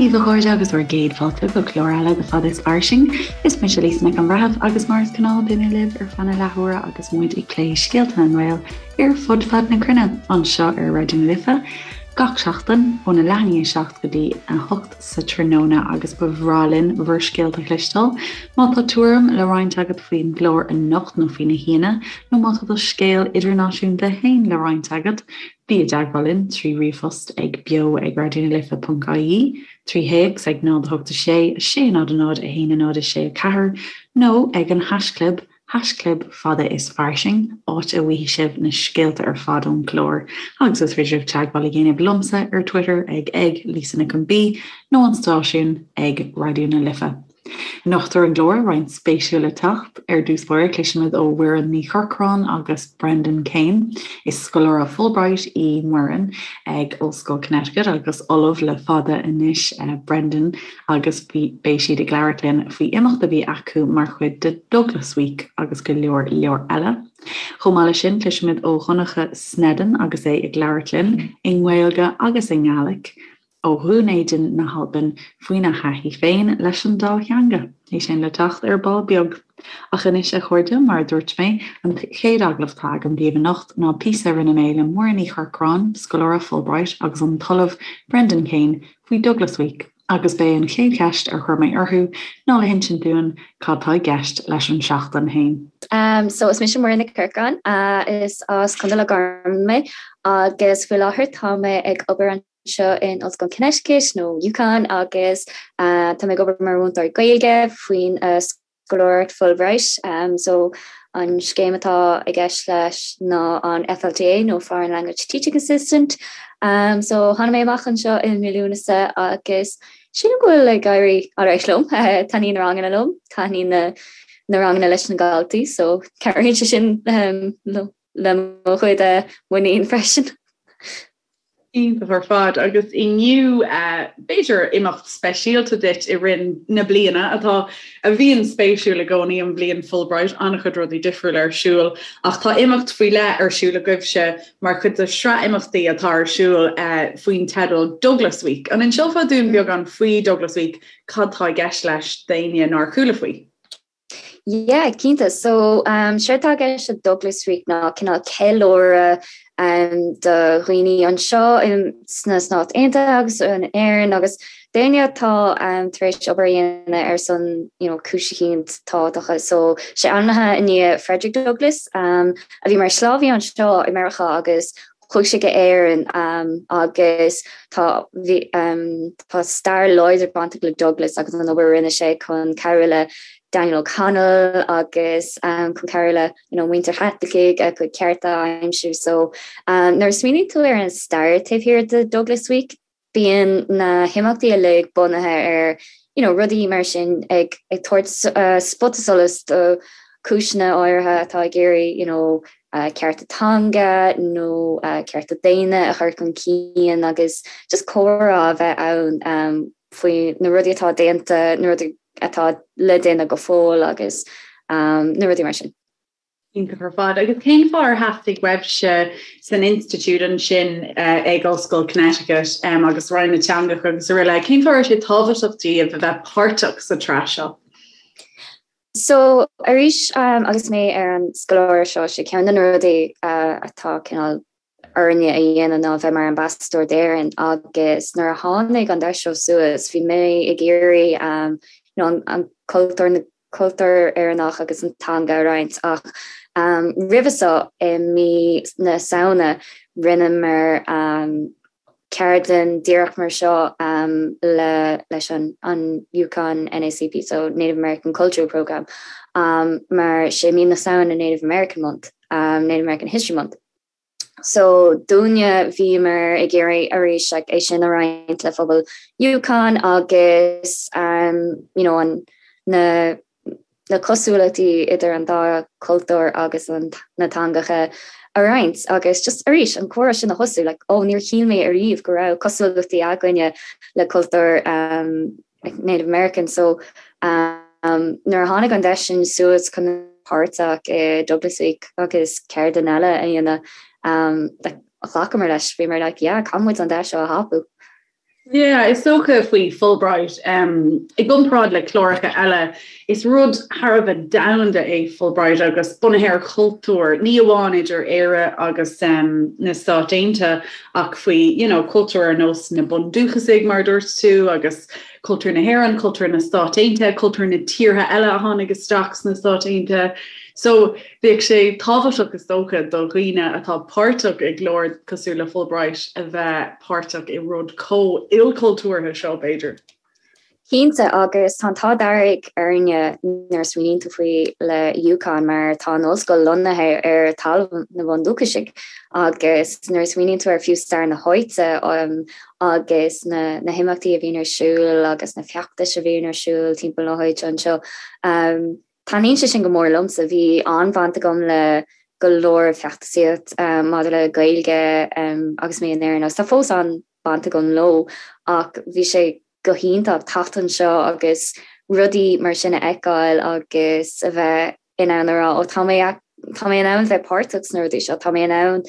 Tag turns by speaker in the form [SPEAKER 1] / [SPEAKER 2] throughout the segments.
[SPEAKER 1] Dia daoibh a chairde agus bhur gcéad fáilte go clár eile de Fada is Fairsing. Is mise Lisa Nic an Bhreithimh agus mar is gnáth beidh mé libh ar feadh na leathuaire agus muid ag plé scéalta na nGael ar fud fad na cruinne anseo ar Raidió na Life gach seachtain óna leath i ndiaidh 7 go dtí 8 sa tráthnóna agus ba bhreá linn bhur scéalta a chloisteáil. Má tá tuairim le roinnt agat faoin gclár anocht nó faoi na haíonna nó má tá do scéal idirnáisiúnta féin le roinnt agat, bí i dteagmháil linn trí ríomhphost ag beo ag raidionalife.ie, trí théacs ag 0 8 6 6 0 0 1 0 6 4 nó ag an haischlib haischlib fada is fairsing, áit a bhfaighidh sibh na scéalta ar fad ón gclár agus is féidir libh teagmháil a dhéanamh liomsa ar Twitter ag ag Lisa Nic an B nó an stáisiún ag Raidió na Life. Anocht ar an gclár, roinnt spéisiúil le teacht. Ar dtús báire, cloisfimid ó Mhuireann Ní Chorcráin agus Brendan Kane. Is scoláire Fulbright í Muireann ag Ollscoil Connecticut agus ollamh le fada anois Brendan agus beidh siad ag labhairt linn faoi imeacht a bhí acu mar chuid de Douglas Week agus go leor leor eile. Chomh maith leis sin, cloisfimid ó Dhonncha Sneddon agus é ag labhairt linn i nGaeilge agus i nGaelic ó Dhún Éideann na hAlban faoina thaithí féin leis an dá theanga. É sin le teacht ar ball beag. Ach anois, a chairde, mar a dúirt mé, an chéad agallamh atá agam daoibh anocht ná píosa a rinne mé le Muireann Ní Chorcráin, scoláire Fulbright, agus an tOllamh Brendan Kane faoi Douglas Week, agus b'é an chéad cheist ar chuir mé orthu ná le hinsint dúinn cad tá i gceist leis an seachtain féin.
[SPEAKER 2] So is mise Muireann Nic Corcráin, is as Contae Loch Garman mé agus faoi láthair tá mé ag obair anseo in Ollscoil Connecticut nó UConn agus tá mé ag obair mar mhúinteoir Gaeilge faoin scoláireacht Fulbright. So an scéim atá i gceist leis ná an FLTA nó Foreign Language Teaching Assistant. So tháinig mé amach anseo i mí Lúnasa agus sílim go bhfuil ag éirí alright liom. Taitníonn na ranganna liom, taitníonn na na ranganna leis na daltaí, so cabhraíonn sé sin le mo chuid muinín freisin.
[SPEAKER 1] Iontach ar fad. Agus inniu, b'fhéidir imeacht speisialta duit i rith na bliana atá, a bhíonn spéisiúil i gcónaí, an bhliain Fulbright, an-chuid rudaí difriúla ar siúl, ach tá imeacht faoi leith ar siúl agaibhse mar chuid de shraith imeachtaí atá ar siúl faoin teideal Douglas Week. An inseofá dúinn beagán faoi Douglas Week, cad tá i gceist leis d'éinne nár chuala faoi?
[SPEAKER 2] Yeah, cinnte. So, um, séard atá i gceist le Douglas Week ná cineál ceiliúradh um, do dhaoine anseo in, sna Stáit Aontaithe agus in Éirinn agus daoine atá um, tar éis obair a dhéanamh ar son you know, cúis eicínt tábhachtacha. So, sé ainmnithe i ndiaidh Frederick Douglass um, a bhí mar shlávaí anseo i Meiriceá agus Chuaigh sé go Éirinn agus tá bhí tá stair láidir bainteach le Douglas agus an obair a rinne sé chun cabhrú le Daniel O'Connell agus chun cabhrú le you know, muintir Chaitlicigh a gcuid cearta a aimsiú. So nuair a smaoiníonn tú ar an stair taobh thiar de Douglas Week, Bíonn na himeachtaí uilig bunaithe ar you know rudaí mar sin ag ag tabhairt spota solais do chúiseanna áirithe atá ag iarraidh you know cearta teanga nó cearta daonna a chur chun cinn agus just comhrá a bheith ann faoi na rudaí atá déanta, na rudaí atá le déanamh go fóill agus na rudaí mar sin.
[SPEAKER 1] Iontach ar fad. Agus cén fáth ar theastaigh uaibhse san institiúid ansin ag Ollscoil Connecticut agus Roinn na Teangacha agus araile, cén fáth a raibh sé tábhachtach daoibh a bheith páirteach sa tsraith seo?
[SPEAKER 2] So, arís agus mé ar an scoláireacht seo, sé ceann de na rudaí atá cineál orainne a dhéanamh ná bheith mar ambasadóir d'Éirinn agus nuair a tháinig an deis seo suas bhí mé ag iarraidh you know, an cultúr na cultúr Éireannach agus an teanga a roinnt ach um, roimhe seo i mí na Samhna rinneamar um, ceardlann díreach mar seo um, le leis an, an UConn NACP, so Native American Cultural Program, um, mar sé mí na Samhna Native American Month, um, Native American History Month. So dúinne bhíomar ag iarraidh arís like, é sin a roinnt le phobal UConn agus um, you know, an, na, na cosúlachtaí idir an dá cultúr agus an, na teangacha a roinnt agus just arís an comhrá sin a thosú like, oh, níor shíl mé ariamh go raibh cosúlachtaí againne le cultúr um, like Native American so um, nuair a tháinig an deis sin suas chun páirteach i Douglas Week agus ceardlann eile a dhéanamh um, like, ghlacamar leis bhíomar like, yeah, caithfidh muid an deis seo a thapú.
[SPEAKER 1] Yeah, is dócha faoi Fulbright, i gcomparáid le cláracha eile, is rud thar a bheith domhanda é Fulbright agus bunaithe ar chultúr, ní amháin idir Éire agus na Stáit Aontaithe ach faoi, you know, cultúr ar nós na bundúchasaigh, mar a dúirt tú, agus cultúr na hÉireann, cultúr na Stát Aontaithe, cultúr na tíortha eile a tháinig isteach sna Stáit Aontaithe. So, bheadh sé tábhachtach is dócha do dhaoine atá páirteach i gclár cosúil le Fulbright a bheith páirteach i rud chomh ilchultúrtha seo, b'fhéidir.
[SPEAKER 2] Cinnte, agus tá an t-ádh dearg orainne nuair a smaoiníonn tú faoi le UConn mar tá an ollscoil lonnaithe ar talamh na bhundúchasaigh agus nuair a smaoiníonn tú ar fiú stair na háite agus na na himeachtaí a bhíonn ar siúl agus na feachtais a bhíonn ar siúl timpeall na háite anseo. Taitníonn sé sin go mór liomsa. Bhí an-bhaint agam le go leor feachtasaíocht maidir le Gaeilge agus mé in Éirinn agus tá fós an-bhaint agam leo ach bhí sé go hiontach teacht anseo agus rudaí mar sin a fheiceáil agus a bheith in ann a rá ó tá mé tá mé in ann bheith páirteach sna rudaí seo, tá mé in ann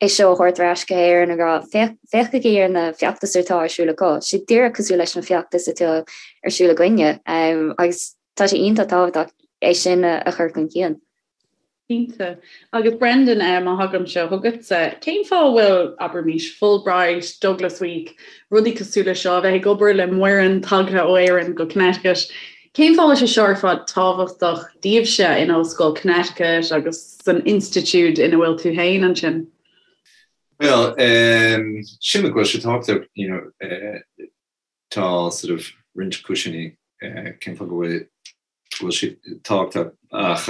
[SPEAKER 2] é seo a thabhairt ar ais go hÉirinn ag rá féachaigí ar na feachtais atá ar siúl acu, sé díreach cosúil leis na feachtais atá ar siúl againne agus tá sé iontach tábhachtach é sin a chur chun cinn.
[SPEAKER 1] Cinnte. Agus Brendan, má thagaimse chugatsa, cén fáth a bhfuil, abraimis, Fulbright, Douglas Week, rudaí cosúil le seo, a bheith ag obair le Muireann tagtha ó Éirinn go Connecticut, cén fáth a bhfuil sé seo ar fad tábhachtach daoibhse in Ollscoil Connecticut agus san institiúid ina bhfuil tú féin ansin?
[SPEAKER 3] Bhuel, sílim go bhfuil sé tábhachtach, you know, tá sort of roinnt cúiseanna cén fáth go bhfuil go bhfuil sé tábhachtach ach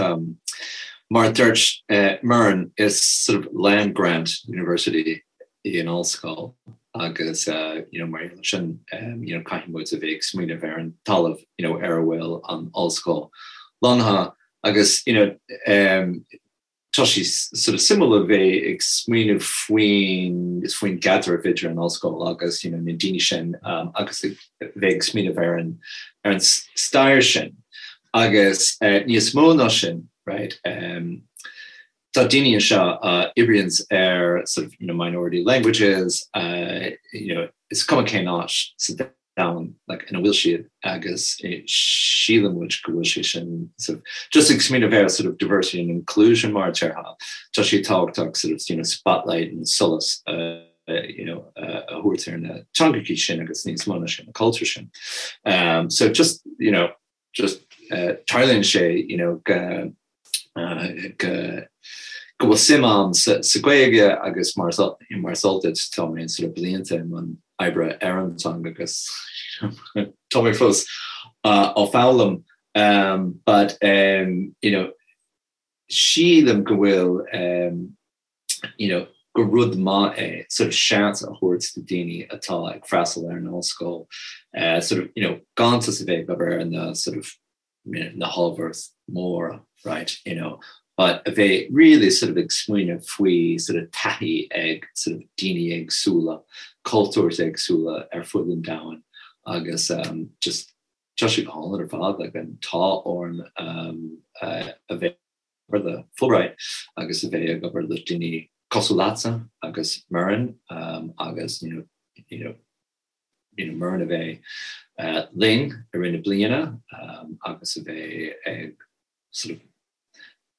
[SPEAKER 3] mar a dúirt Muireann, is sort of land grant university í an ollscoil agus you know mar gheall sin you know caithfidh muid a bheith ag smaoineamh ar an talamh you know ar a bhfuil an ollscoil lonnaithe agus you know tá sé sort of suimiúil a bheith ag smaoineamh faoin faoin gcaidreamh idir an ollscoil agus you know na daoine sin agus a bheith ag smaoineamh ar an ar an stair sin agus níos mó ná sin right tá daoine anseo a oibríonns ar sort of you know minority languages you know is cuma cén áit sa domhan like ina bhfuil siad agus síleann muid go bhfuil sé sin sort of just ag smaoineamh ar sort of diversity and inclusion mar a déarfá tá sé tábhachtach sort of you know spotlight and solas uh, you know uh, a thabhairt ar na teangacha sin agus níos mó ná sin na cultúir sin um, so just you know just uh, tarlaíonn sé you know go uh, go go bhfuil suim agam sa, sa Ghaeilge agus mar mar is eol duit tá mé sort of blianta i mbun oibre ar an teanga agus tá mé fós uh, á foghlaim um, but um, you know sílim go bhfuil um, you know, gur rud maith é sort of seans a thabhairt do daoine atá ag freastal ar an ollscoil uh, sort of, you know, gan just a bheith ag obair ar na sort of you know, na hábhair móra, right, you know, but a bheith really sort of ag smaoineamh faoi sort of taithí ag sort of daoine éagsúla, cultúir éagsúla ar fud an domhain agus um, just tá sé go hálainn ar fad like, an t-ádh orainn um, uh, a bheith obair le Fulbright agus a bheith ag obair le daoine cosúil leatsa agus Muireann agus you know you know you know Muireann a bheith uh, linn i rith na bliana um, agus a bheith ag sort of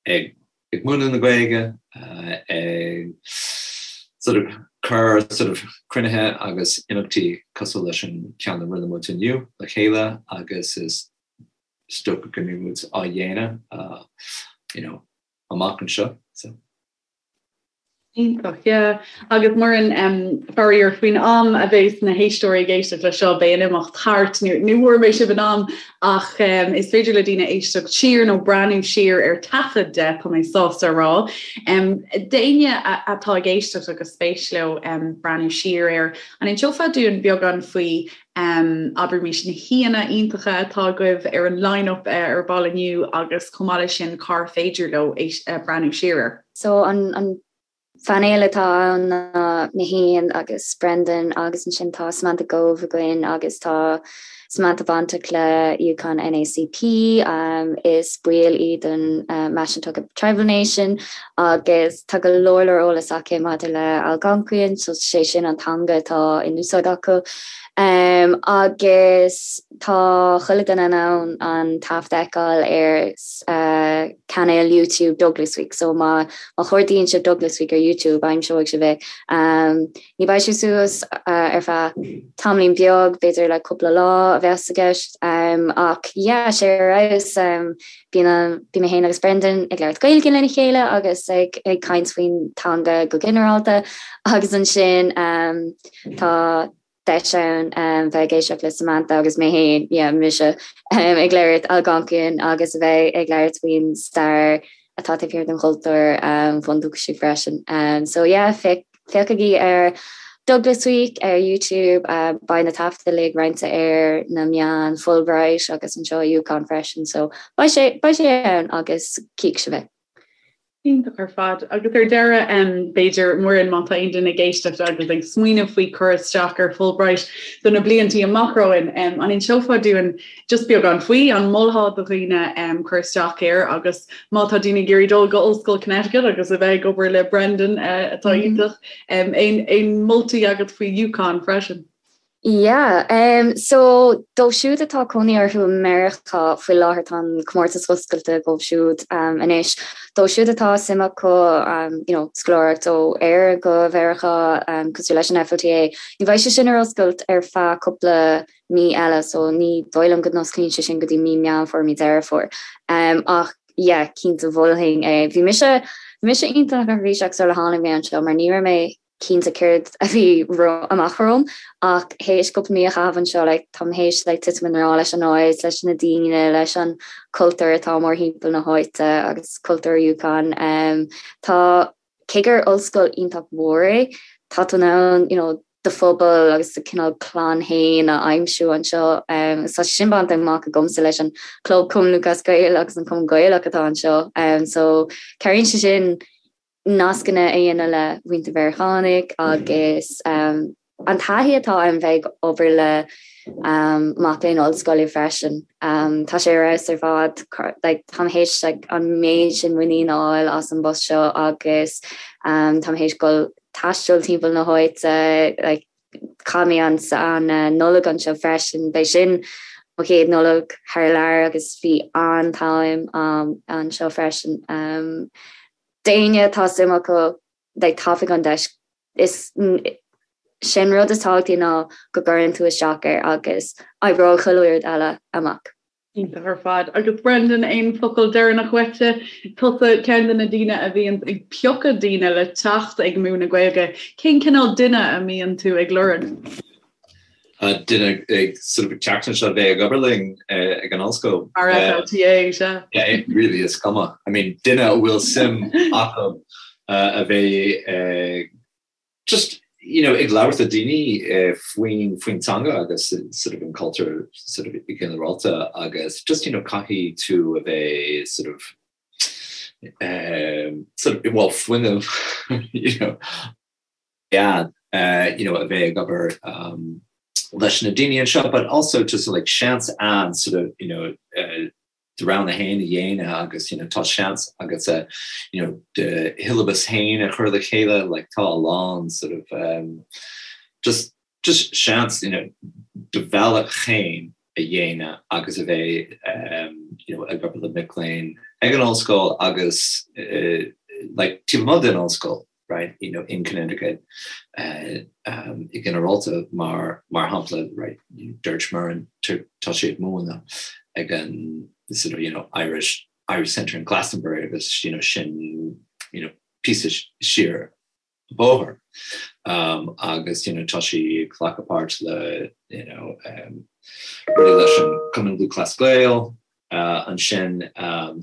[SPEAKER 3] ag ag múineadh na Gaeilge uh, ag sort of cur sort of cruinnithe agus imeachtaí cosúil leis an ceann a rinne muid inniu le chéile agus is is dócha go mbeidh muid á dhéanamh you know amach anseo so.
[SPEAKER 1] Iontach, yeah. Agus Muireann, um, faraor faoin am a bheas na héisteoirí ag éisteacht le seo beidh an imeacht thart, ní ní bhfuair mé sibh in am ach um, is féidir le daoine éisteacht siar nó breathnú siar ar taifead de tá mé sásta a rá. Um, D'éinne atá ag éisteacht agus spéis leo um, breathnú siar air, an inseofá dúinn beagán faoi Abraimis na haíonna iontacha atá agaibh ar an line-up ar ball inniu agus chomh maith leis sin cár féidir leo breathnú siar air.
[SPEAKER 2] So an phainéal atá ann ná mé féin agus Brendan agus ansin tá Samantha Gove againn agus tá Samantha bainteach le UConn NAACP, is baill í den Mashantucket Tribal Nation agus tá go leor leor eolas aici maidir le Algonquian, so sé sin an teanga atá in úsáid acu. Agus tá chuile duine in ann an taifead a fheiceáil ar cainéal YouTube Douglas Week, so má má chuardaíonn sibh Douglas Week ar YouTube aimseoidh sibh é. Ní bheidh sé suas ar feadh tamaillín beag, b'fhéidir le cúpla lá a bheas i gceist, ach yeah, sé ar fheabhas. Bíonn bíonn mé féin agus Brendan ag labhairt Gaeilge lena chéile agus ag ag caint faoin teanga go ginearálta agus ansin tá deis ann bheith ag éisteacht le Samantha agus mé féin, yeah, mise, ag labhairt Algonquian agus a bheith ag labhairt faoin stair atá taobh thiar den chultúr bhundúchasach freisin. So yeah, féachaigí ar Douglas Week ar YouTube, beidh na taifid uilig roinnte ar na meáin Fulbright agus anseo i UConn freisin, so beidh sé, beidh sé ann agus cífidh sibh é.
[SPEAKER 1] Iontach ar fad. Agus ar deireadh, b'fhéidir, Muireann, má tá aon duine ag éisteacht agus ag smaoineamh faoi cur isteach ar Fulbright do na bliantaí amach romhainn, an inseofá dúinn just beagán faoi, an molfá do dhaoine cur isteach air agus má tá daoine ag iarraidh dul go Ollscoil Connecticut agus a bheith ag obair le Brendan atá iontach, aon moltaí agat faoi UConn freisin?
[SPEAKER 2] Yeah, um, so dóibh siúd atá cónaí orthu i Meiriceá faoi láthair tá an comórtas oscailte dóibh siúd um, anois. Dóibh siúd atá suim acu um, you know, scoláireacht ó Éire go Mheiriceá um, cosúil leis an FLTA, ní bheidh sé sin ar oscailt ar feadh cúpla mí eile so ní dóigh liom go n-osclaíonn sé sin go dtí mí Meán Fómhair, mí Deireadh Fómhair. Um, ach yeah, cinnte mholfainn é. Bhí mise bhí mise iontach neirbhíseach sula tháinig mé anseo mar ní raibh mé cinnte céard a bhí amach romham ach théis cúpla mí a chaitheamh anseo like, táim théis like, titim i ngrá leis an áit, leis na daoine, leis an cultúr atá mórthimpeall na háite agus cultúr UConn. Um, tá cé gur ollscoil iontach mhór é, tá tú in ann you know, do phobal agus do cineál clann féin a aimsiú anseo. Um, tá sin bainte amach agamsa leis an Club Cumann Lúthchleas Gael agus an Cumann Gaelach atá anseo. Um, so cabhraíonn sé sin nascanna a dhéanamh le muintir Mheiriceánaigh agus um, an taithí atá ann bheith ag obair le um, mac léinn ollscoile freisin. Um, tá sé ar fheabhas ar fad like, táim théis like, an méid sin muinín a fháil as an bpost seo agus um, táim théis dul taisteal timpeall na háite like, chaith mé an an uh, Nollaig anseo freisin, b'é sin mo chéad Nollaig thar lear agus bhí an-am um, anseo freisin. Um, D'éinne atá suim acu like tapaigh an deis is sin rud is tábhachtaí ná go gcuireann tú isteach air agus oibreoidh chuile rud eile amach.
[SPEAKER 1] Iontach ar fad. Agus Brendan, aon focal deireanach uaitse? Tusa ceann de na daoine a bhíonn ag piocadh daoine le teacht ag múineadh Gaeilge. Cén cineál duine a mbíonn tú ag lorg?
[SPEAKER 3] Duine ag sort of ag teacht anseo a bheith ag obair linn ag an ollscoil.
[SPEAKER 1] Mar FLTA, sea.
[SPEAKER 3] Yeah, really is cuma. I mean, duine a bhfuil suim acu a bheith ag just you know, ag labhairt le daoine faoin faoin teanga agus sort of an cultúr sort of i ginearálta agus just you know, caithfidh tú a bheith sort of um, sort of well fuinneamh you know, yeah, you know, a bheith ag obair um, leis na daoine anseo, but also just like seans ann sort of, you know, uh, do rogha féin a dhéanamh agus you know, tá seans agat uh, you know, do shiollabas féin a chur le chéile, like tá a lán sort of um, just just seans you know, do bhealach féin a dhéanamh agus a bheith um, you know, ag obair le mic léinn ag an ollscoil agus uh, like taobh amuigh den ollscoil. right, you know, in Connecticut uh, um, i ginearálta mar mar shampla right, dúirt Muireann tá sí ag múineadh ag an sort of, you know, Irish Irish Centre in Glastonbury agus you know, sin you know, píosa siar an bóthar um, agus you know, tá sí ag glacadh páirt le you know, um, rudaí leis an Cumann Lúthchleas Gael ansin.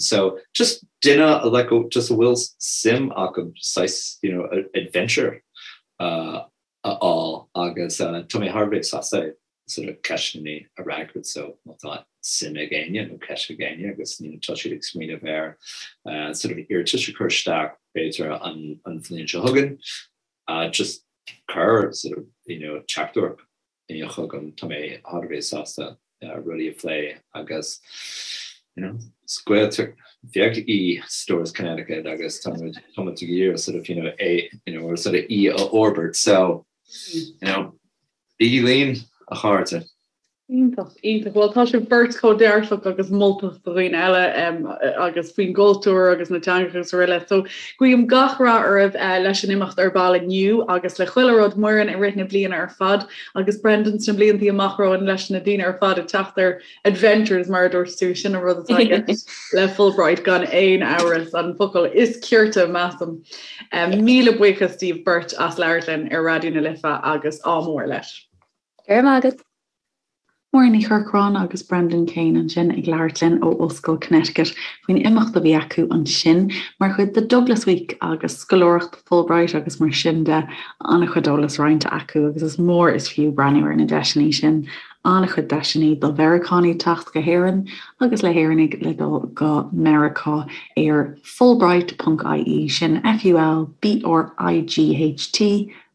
[SPEAKER 3] So just duine like just a bhfuil suim acu saghas you know adventure a fháil agus tá mé thar a bheith sásta sort of ceisteanna a fhreagairt so má tá suim ag éinne nó ceist ag éinne agus you know tá siad ag smaoineamh ar sort of iarratas a chur isteach b'fhéidir an an bhliain seo chugainn just cuir sort of you know teachtaireacht chugam, tá mé thar a bheith sásta rudaí a phlé agus you know is Gaeltacht bheag í Storrs Connecticut agus tá muid tá muid ag iarraidh sort of you know é you know or sort of í a fhorbairt so you know bígí linn. a chairde.
[SPEAKER 4] Iontach, iontach. Bhuel, tá sibh beirt chomh dearfach agus moltach do dhaoine eile agus faoin gcultúr agus na teangacha agus araile. So, guím gach rath oraibh leis an imeacht ar ball inniu agus le chuile rud, Muireann, i rith na bliana ar fad agus Brendan sna bliantaí amach romhainn leis na daoine ar fad ag teacht ar adventures mar a dúirt tú, sin an rud atá i gceist le Fulbright gan aon amhras, an focal is cirte measaim. Míle buíochas daoibh beirt as labhairt linn ar Raidió na Life agus ádh mór leis.
[SPEAKER 2] Go raibh maith agat.
[SPEAKER 1] Muireann Ní Chorcráin agus Brendan Kane ansin ag labhairt linn ó Ollscoil Connecticut faoin imeacht a bhí acu ansin mar chuid de Douglas Week agus scoláireacht Fulbright agus mar sin de. An-chuid eolas roinnte acu agus is mór is fiú breathnú ar na deiseanna sin. An-chuid deiseanna do Mheiriceánaigh teacht go hÉirinn agus le hÉireannaigh le dul go Meiriceá ar fulbright.ie, sin F-U-L-B-R-I-G-H-T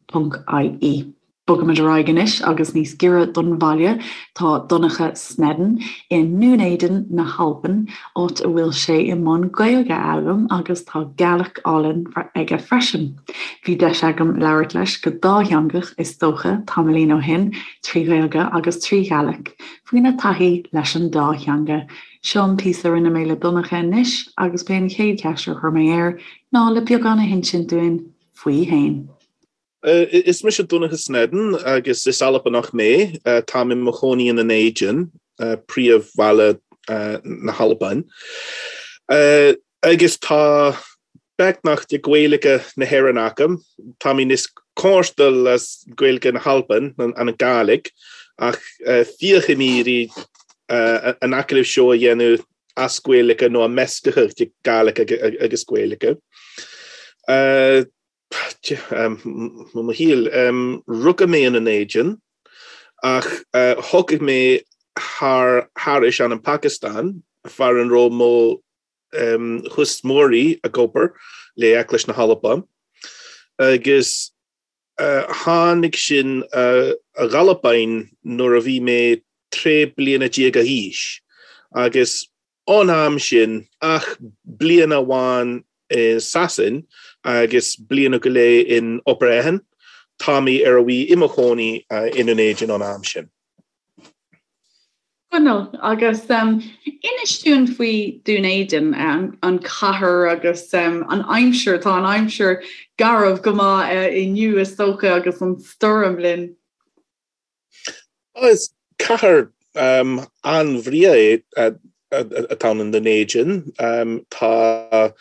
[SPEAKER 1] ponc I-E. Bogaimid ar aghaidh anois agus níos giorra don bhaile tá Donncha Sneddon i nDún Éideann na hAlban, áit a bhfuil sé i mbun Gaeilge a fhoghlaim agus tá Gàidhlig álainn aige freisin. Bhí deis agam labhairt leis go dátheangach, is dócha, tamaillín ó shin, trí Ghaeilge agus trí Ghàidhlig, faoina taithí leis an dá theanga. Seo an píosa a rinne mé le Donncha anois agus b'é an chéad cheist a chuir mé air ná le beagán a hinsint dúinn faoi fhéin.
[SPEAKER 5] Is mise Donncha Sneddon agus is Albanach mé. Táim i mo chónaí i nDún Éideann, príomhbhaile na hAlban. Agus tá beagnach de Ghaeilge na hÉireann agam. Tá mé níos comhordaí le Gaeilge na hAlban, an Gàidhlig, ach féachfaidh mé iarraidh an agallamh seo a dhéanamh as Gaeilge nó measctha de Gàidhlig agus Gaeilge. Mo shaol, rugadh mé i nDún Éideann ach thiocfaidh mé thar thairis an an Phacastáin far an raibh mo thuismitheoirí ag obair le Eaglais na hAlban agus tháinig sinn ag Albain nuair a bhí mé 13 bliana d'aois agus Ón am sin, ach bliain amháin i Sasain agus bliain go leith in Obar Eathain, tá mé ar a bhí i mo chónaí i nDún Éideann ón am sin.
[SPEAKER 4] Conall, Agus inis dúinn faoi Dún Éideann, an chathair agus an aimsir, tá an aimsir garbh go maith inniu is dócha agus an stoirm linn.
[SPEAKER 5] Is cathair an-bhreá é atá ann i nDún Éideann. Tá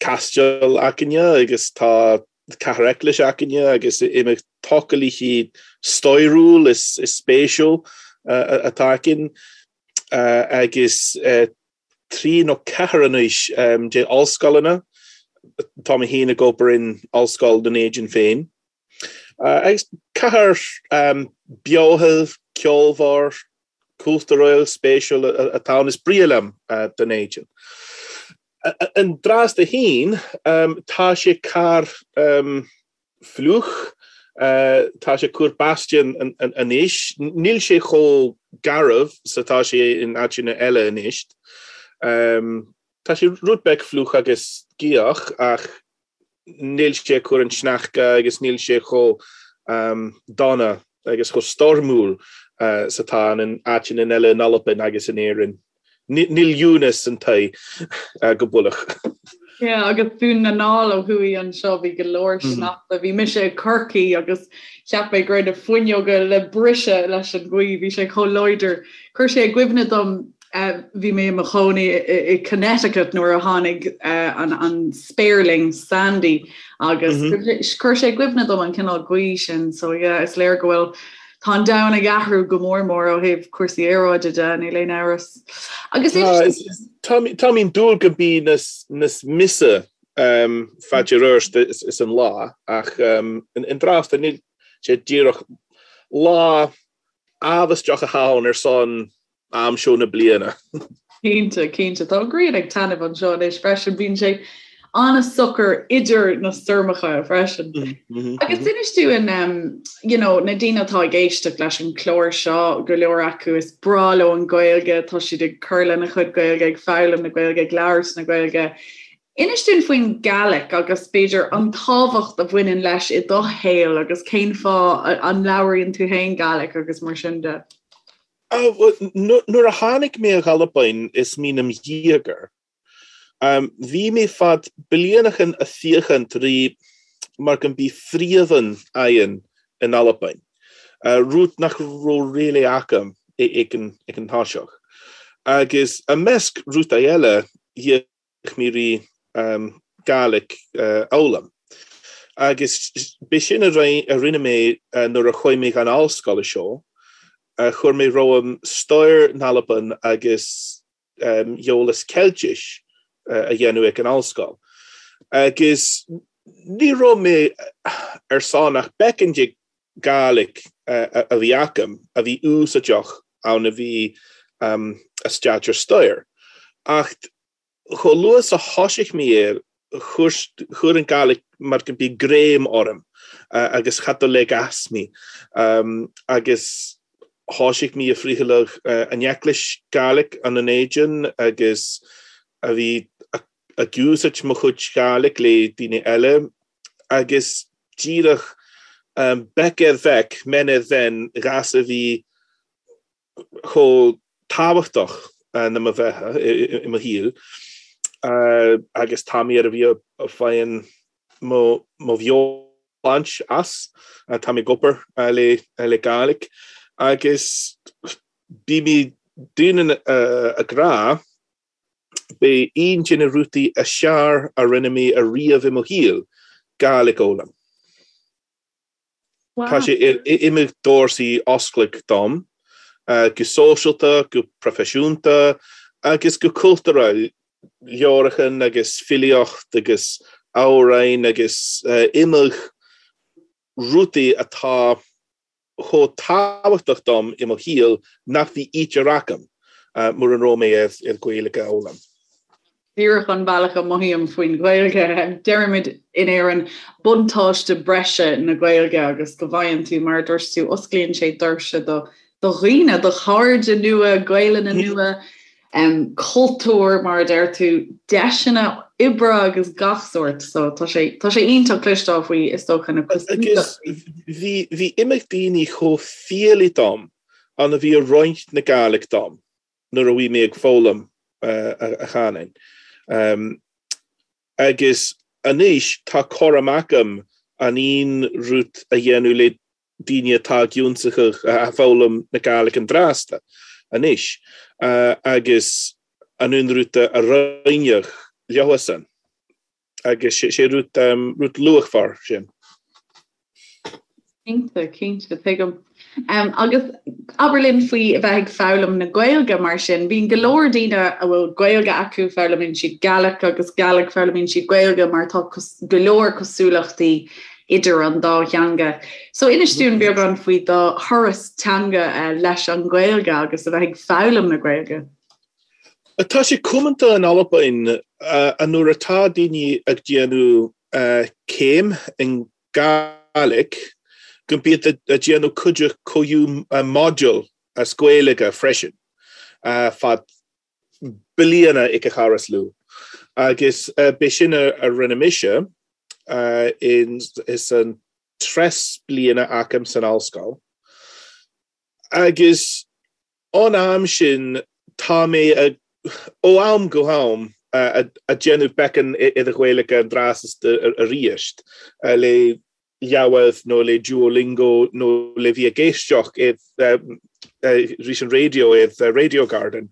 [SPEAKER 5] caisteal againne agus tá cathair eaglais againne agus imeacht tochailithe stairiúil is spéisiúil atá againn agus trí nó ceathair anois de ollscoileanna. Tá mé féin ag obair in Ollscoil Dún Éideann féin. Agus cathair beochal, ceolmhar, cultúrúil, spéisiúil atá ann. Is breá liom Dún Éideann. An dtráth féin, tá sé corr fliuch, tá sé cur báistí anois. Níl sé chomh garbh 's atá sé in áiteanna eile anois. Tá sé rud beag fliuch agus gaothach ach níl sé ag cur an sneachta agus níl sé chomh dona agus chomh stoirmiúil 's atá in áiteanna eile in Albain agus in Éirinn. Níl Eunice an tae go builleach.
[SPEAKER 4] Yeah, agus Dún na nGall ó thuaidh anseo, bhí go leor sneachta. Bhí mise i Corcaigh agus cheap mé go raibh na fuinneoga le briseadh leis an ghaoth, bhí sé chomh láidir. Chuir sé i gcuimhne dom Bhí mé i mo chónaí i Connecticut nuair a tháinig an spéirling Sandy agus chuir sé i gcuimhne dom an cineál gaoth sin so yeah is léir go bhfuil tá an domhan ag athrú go mór mór ó thaobh cúrsaí aeráide de, níl aon amhras.
[SPEAKER 5] Agus Tá mé ag dúil go mbí níos measa faide arís is an lá ach an dtráth níl sé díreach lá amhaisteach atá ann ar son am seo na bliana.
[SPEAKER 4] Cinnte, cinnte. Tá an ghrian ag taitneamh anseo anois freisin. Bíonn sé an-socair idir na stoirmeacha freisin. Mm -hmm, Agus mm -hmm. inis dúinn you know, na daoine atá ag éisteacht leis an chlár seo go leor acu is breá leo an Ghaeilge, tá siad ag cur lena chuid Gaeilge, ag foghlaim na Gaeilge, ag labhairt na Gaeilge. Inis dúinn faoin Gàidhlig agus b'fhéidir an tábhacht a bhaineann leis i do shaol agus cén fáth a labhraíonn tú féin Gàidhlig agus mar sin de.
[SPEAKER 5] Nuair a tháinig mé ag Albain is mí 'nam dhéagoir, bhí mé fad blianachan a' féachaint ri mar go mbí fríomhann aghainn in Albain, rud nach raibh really agam ag an toiseach. Agus i measc rudaí eile, d'fhéach mé ri Gàidhlig a fhoghlaim. Agus b'é sin a rinne mé nuair a chuaigh mé gon ollscoil seo, chuir mé romham stair n'Alban agus eolas Ceiltis a dhéanamh ag an ollscoil. Agus ní raibh mé ar son ach beagán de Gàidhlig a bhí agam a bhí úsáideach ann a bhí a staidéar stair. Ach chomh luath is a thoisigh mé air, chuir an Gàidhlig mar go mbí greim orm agus cha do leig as mé. Agus thoisigh mé a friotháladh an eaglais Gàidhlig ann in Éideann agus a bhí ag úsáid mo chuid Gàidhlig le daoine eile agus díreach beic ar bheic, men ar mhen, ghas a bhí chomh tábhachtach na mo bheatha i mo shaol agus tá mé ar a bhí a faigheann mo bheoshláint as, tá mé ag obair le le Gàidhlig agus bí mé daoine ag rá b'é aon de na rudaí is fearr a rinne mé ariamh i mo shaol, Gàidhlig a fhoghlaim. Tá sé ar iomad doirse oscailte dom, go sóisialta, go proifisiúnta agus go cultúrtha, leabhrachan agus filíocht agus amhráin agus iomad rudaí atá chomh tábhachtach dom i mo shaol nach bhí ítear agam mura raibh mé ar Ghaeilge a fhoghlaim.
[SPEAKER 4] Díreach an bealach a mothaím faoin Ghaeilge. Deirimid in Éirinn buntáiste breise na Gaeilge agus go bhfaigheann tú, mar a dúirt tú, osclaíonn sé doirse do do dhaoine, do chairde nua, Gaelainne nua, cultúr, mar a deir tú, deiseanna oibre agus gach sórt. So tá sé tá sé iontach cloisteáil faoi is dócha na
[SPEAKER 5] Agus bhí bhí iomad daoine chomh fialaí dom ann a bhí ag roinnt na Gàidhlig dom. nuair a bhí mé ag foghlaim a chanúin. Agus anois tá cur amach agam an aon rud a dhéanamh le daoine atá ag ionsaitheach a foghlaim na Gàidhlig an dtrásta anois agus an aon rud a roinneadh leosan. Agus sé rud, rud luachmhar sin.
[SPEAKER 4] Cinnte, cinnte, tuigim. Agus abair linn faoi a bheith ag foghlaim na Gaeilge mar sin. Bíonn go leor daoine a bhfuil Gaeilge acu, foghlaimíonn siad Gàidhlig agus Gàidhlig, foghlaimíonn siad Gaeilge mar tá go leor cosúlachtaí idir an dá theanga. So inis dúinn beagán faoi do thuras teanga leis an Ghaeilge agus a bheith ag foghlaim na Gaeilge.
[SPEAKER 5] Tá sé comanta in Albain nuair atá daoine ag déanamh céim in Gàidhlig go mbíod ag déanamh cuid comhiú module as Gaeilge freisin fad bliana ag a chara is lú. Agus b'é sin a rinne mise is an treas bliana agam san ollscoil. Agus Ón am sin tá mé ag, ó am go ham, ag déanamh beacán i do Ghaeilge an dtráth arís le leabhar nó le Duolingo nó le bhí ag éisteacht arís an raidió ar Radio Garden.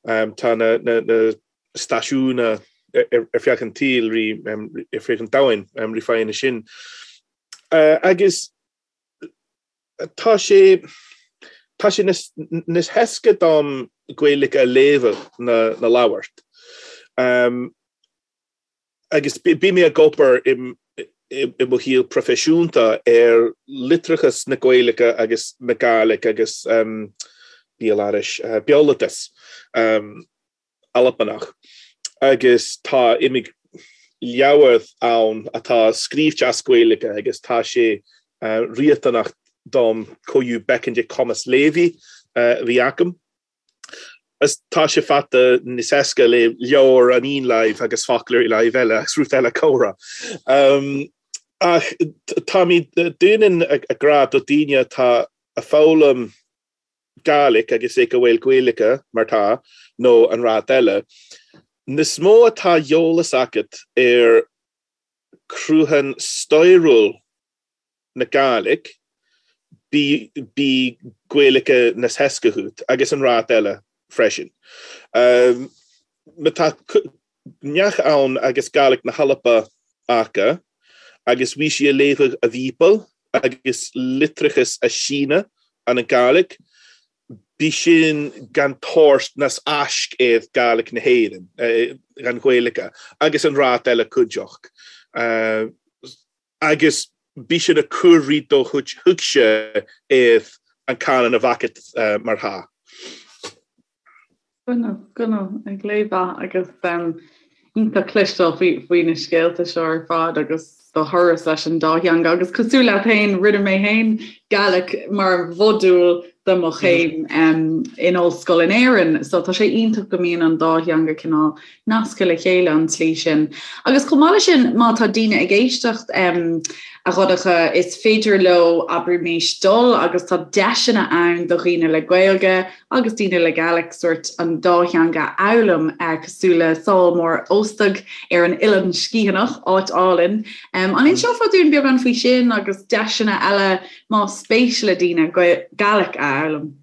[SPEAKER 5] Tá na stáisiúin ar feadh an tsaoil, ar feadh an domhain, rí faigheann sin. Agus Tá sé, tá sé níos héasca dom Gaeilge a léamh ná ná labhairt. Agus bí mé ag obair i i mo shaol proifisiúnta ar litreachas na Gaeilge agus na Gàidhlig agus béaloideas, béaloideas. Albanach agus tá iomad leabhar ann atá scríobhte as Gaeilge agus tá sé riachtanach dom comhiú beacán de cumas léamh a bhí agam. Is tá sé fata níos éasca le leabhar an aon láimh agus foclóir i láimh eile agus rud eile comhrá. Ach táimid dúinn ag rá do daoine atá ag foghlaim Gàidhlig agus ag a bhfuil Gaeilge mar tá nó an rud eile, níos mó atá eolas agat ar cruachan stairiúil na Gàidhlig, bí Gaeilge níos éasca dhuit agus an rud eile freisin. Má tá neach ann agus Gàidhlig na hAlba aca agus bhí sí a léamhadh a Bhíobail agus litreachas a síneadh an an Gàidhlig, bí sin gan tabhairt nas aisc iad Gàidhlig na hÉireann, gan Ghaeilge, agus an rud eile cuideachd. Agus bí sin a cur rí do thuigse iad an canann a bhacat mar tha.
[SPEAKER 4] Go go ag léamh agus iontach cloisteáil faoi na scéalta seo ar fad agus do thuras leis an dá theanga agus cosúil leat féin rinne mé féin Gaelic mar mhodúl do mo chéim in ollscoil in Éirinn so tá sé iontach go mbíonn an dá theanga cineál nasctha le chéile an tslí sin. Agus chomh maith leis sin, má tá daoine ag éisteacht, a Dhonncha, is féidir leo, abraimis, dul agus tá deiseanna ann do dhaoine le Gaeilge agus daoine le Gaelic sórt an dá theanga a fhoghlaim, cosúil le Sabhal Mòr Ostaig ar an Oileán Sgitheanach, áit álainn. An inseofá dúinn beagán faoi sin agus deiseanna eile más spéis le daoine Gaelic a fhoghlaim?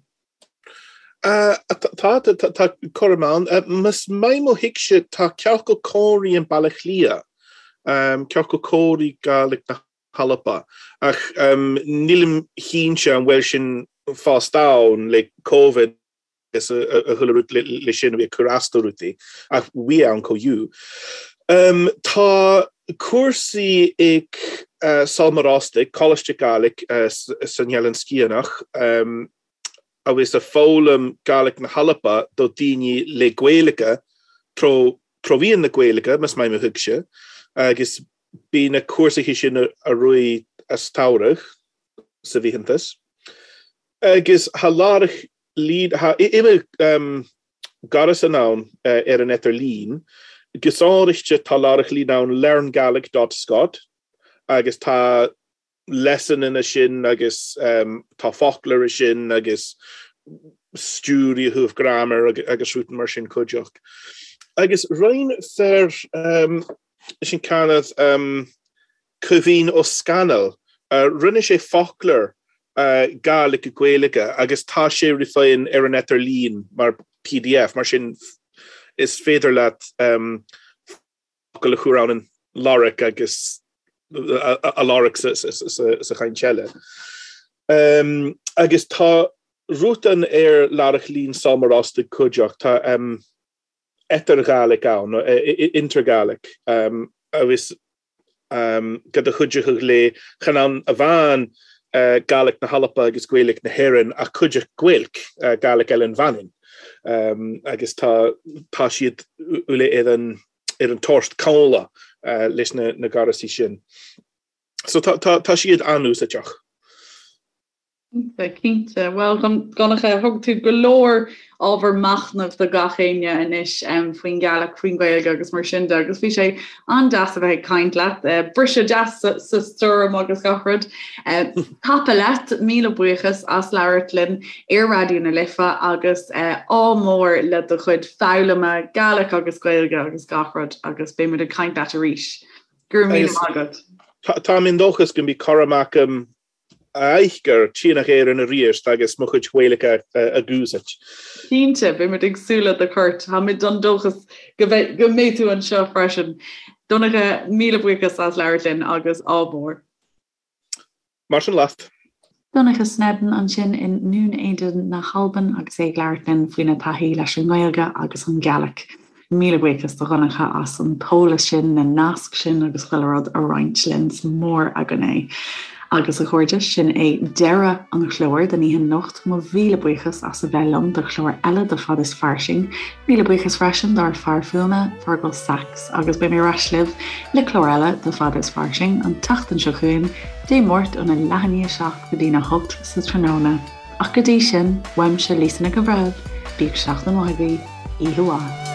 [SPEAKER 5] Tá, tá cúram ann. Más maith mo thuigse, tá ciorcal comhraí in Baile Átha Cliath, ciorcal comhraí Gàidhlig na hAlba, ach nílim cinnte an bhfuil sin fós ann le Covid agus a chuile rud le sin a bhí ag cur as do rudaí, ach bhí ann chomh fiú. Tá cúrsaí ag Sabhal Mòr Ostaig, Coláiste Gàidhlig san Eilean Sgitheanach, agus a foghlaim Gàidhlig na hAlba do daoine le Gaeilge tró mheán na Gaeilge, más maith mo thuigse, agus bí na cúrsaithe sin a rith as tsamhradh sa bhfiántas. Agus tha laireach lín, tha ime gaireasan ann ar an idirlíon, gus áirithe tá laireach lín ann learngaelic dot scot agus tá lesson ina sin agus tá foclóir sin agus stiúir i thaobh grammar agus rudaí mar sin cuideachd. Agus roinn fear sin Canad Caoimhín Ó Scanaill, rinne sé foclóir Gàidhlig go Gaeilge agus tá sé ri féin ar an idirlíon mar pdf, mar sin is féidir leat focal a chur ann an lorg agus a lorg sa chaint eile. Agus tá rutan ar Laireach Lín Sabhal Mòr Ostaig cuideachd, tá Eatar-Ghàidhlig ann, Intergaelic, agus go do chuideochadh le chan ann amháin Gàidhlig na hAlba agus Gaeilge na hÉireann ach cuideachd Gaeilg, Gàidhlig Eilean Mhanann. Agus tá tá siad uile ar an ar an toirt comhla leis na na gaireasaí sin. So tá tá tá siad an-úsáideach.
[SPEAKER 4] Cinnte, cinnte. Bhuel, Donncha, thug tú go leor ábhar machnaimh do gach éinne anois faoin Ghaelic, faoin Ghaeilge agus mar sin de agus bhí sé an-deas a bheith ag caint leat. Briseadh deas sa stoirm agus gach rud. Tapa leat, míle buíochas as labhairt linn ar Raidió na Life agus ádh mór le do chuid foghlama Gaelic agus Gaeilge agus gach rud agus beidh muid ag caint leat arís. Go raibh míle maith agat.
[SPEAKER 5] Táim i ndóchas go mbeidh cothrom agam Aithgir, Tíonach Éireann arís agus mo chuid Gaeilge a dh'úsáid.
[SPEAKER 4] Cinnte, beimid ag súil le do chuairt. Táimid den dóchas go mbeidh tú anseo freisin. Donncha, míle buíochas as labhairt linn agus ádh mór.
[SPEAKER 5] Mar sin leat.
[SPEAKER 1] Donncha Sneddon ansin i nDún Éideann na hAlban agus é ag labhairt linn faoina taithí leis an nGaeilge agus an Ghaelic. Míle buíochas do Dhonncha as an t-eolas sin, na naisc sin agus chuile rud a roinnt linn. Is mór againn é. Agus a chairde, sin é deireadh an chláir don oíche anocht. Mo mhíle buíochas as a bheith liom do chlár eile de Fad is Fairsing. Míle buíochas freisin dár fear fuaime, Fergal Sachs, agus beidh mé ar ais libh le clár eile de Fad is Fairsing an tseachtain seo chugainn, Dé Máirt óna leath i ndiaidh a 7 go dtína 8 sa tráthnóna. Ach go dtí sin, uaimse Lisa Nic an Bhreithimh. Bíodh seachtain mhaith agaibh, oíche mhaith.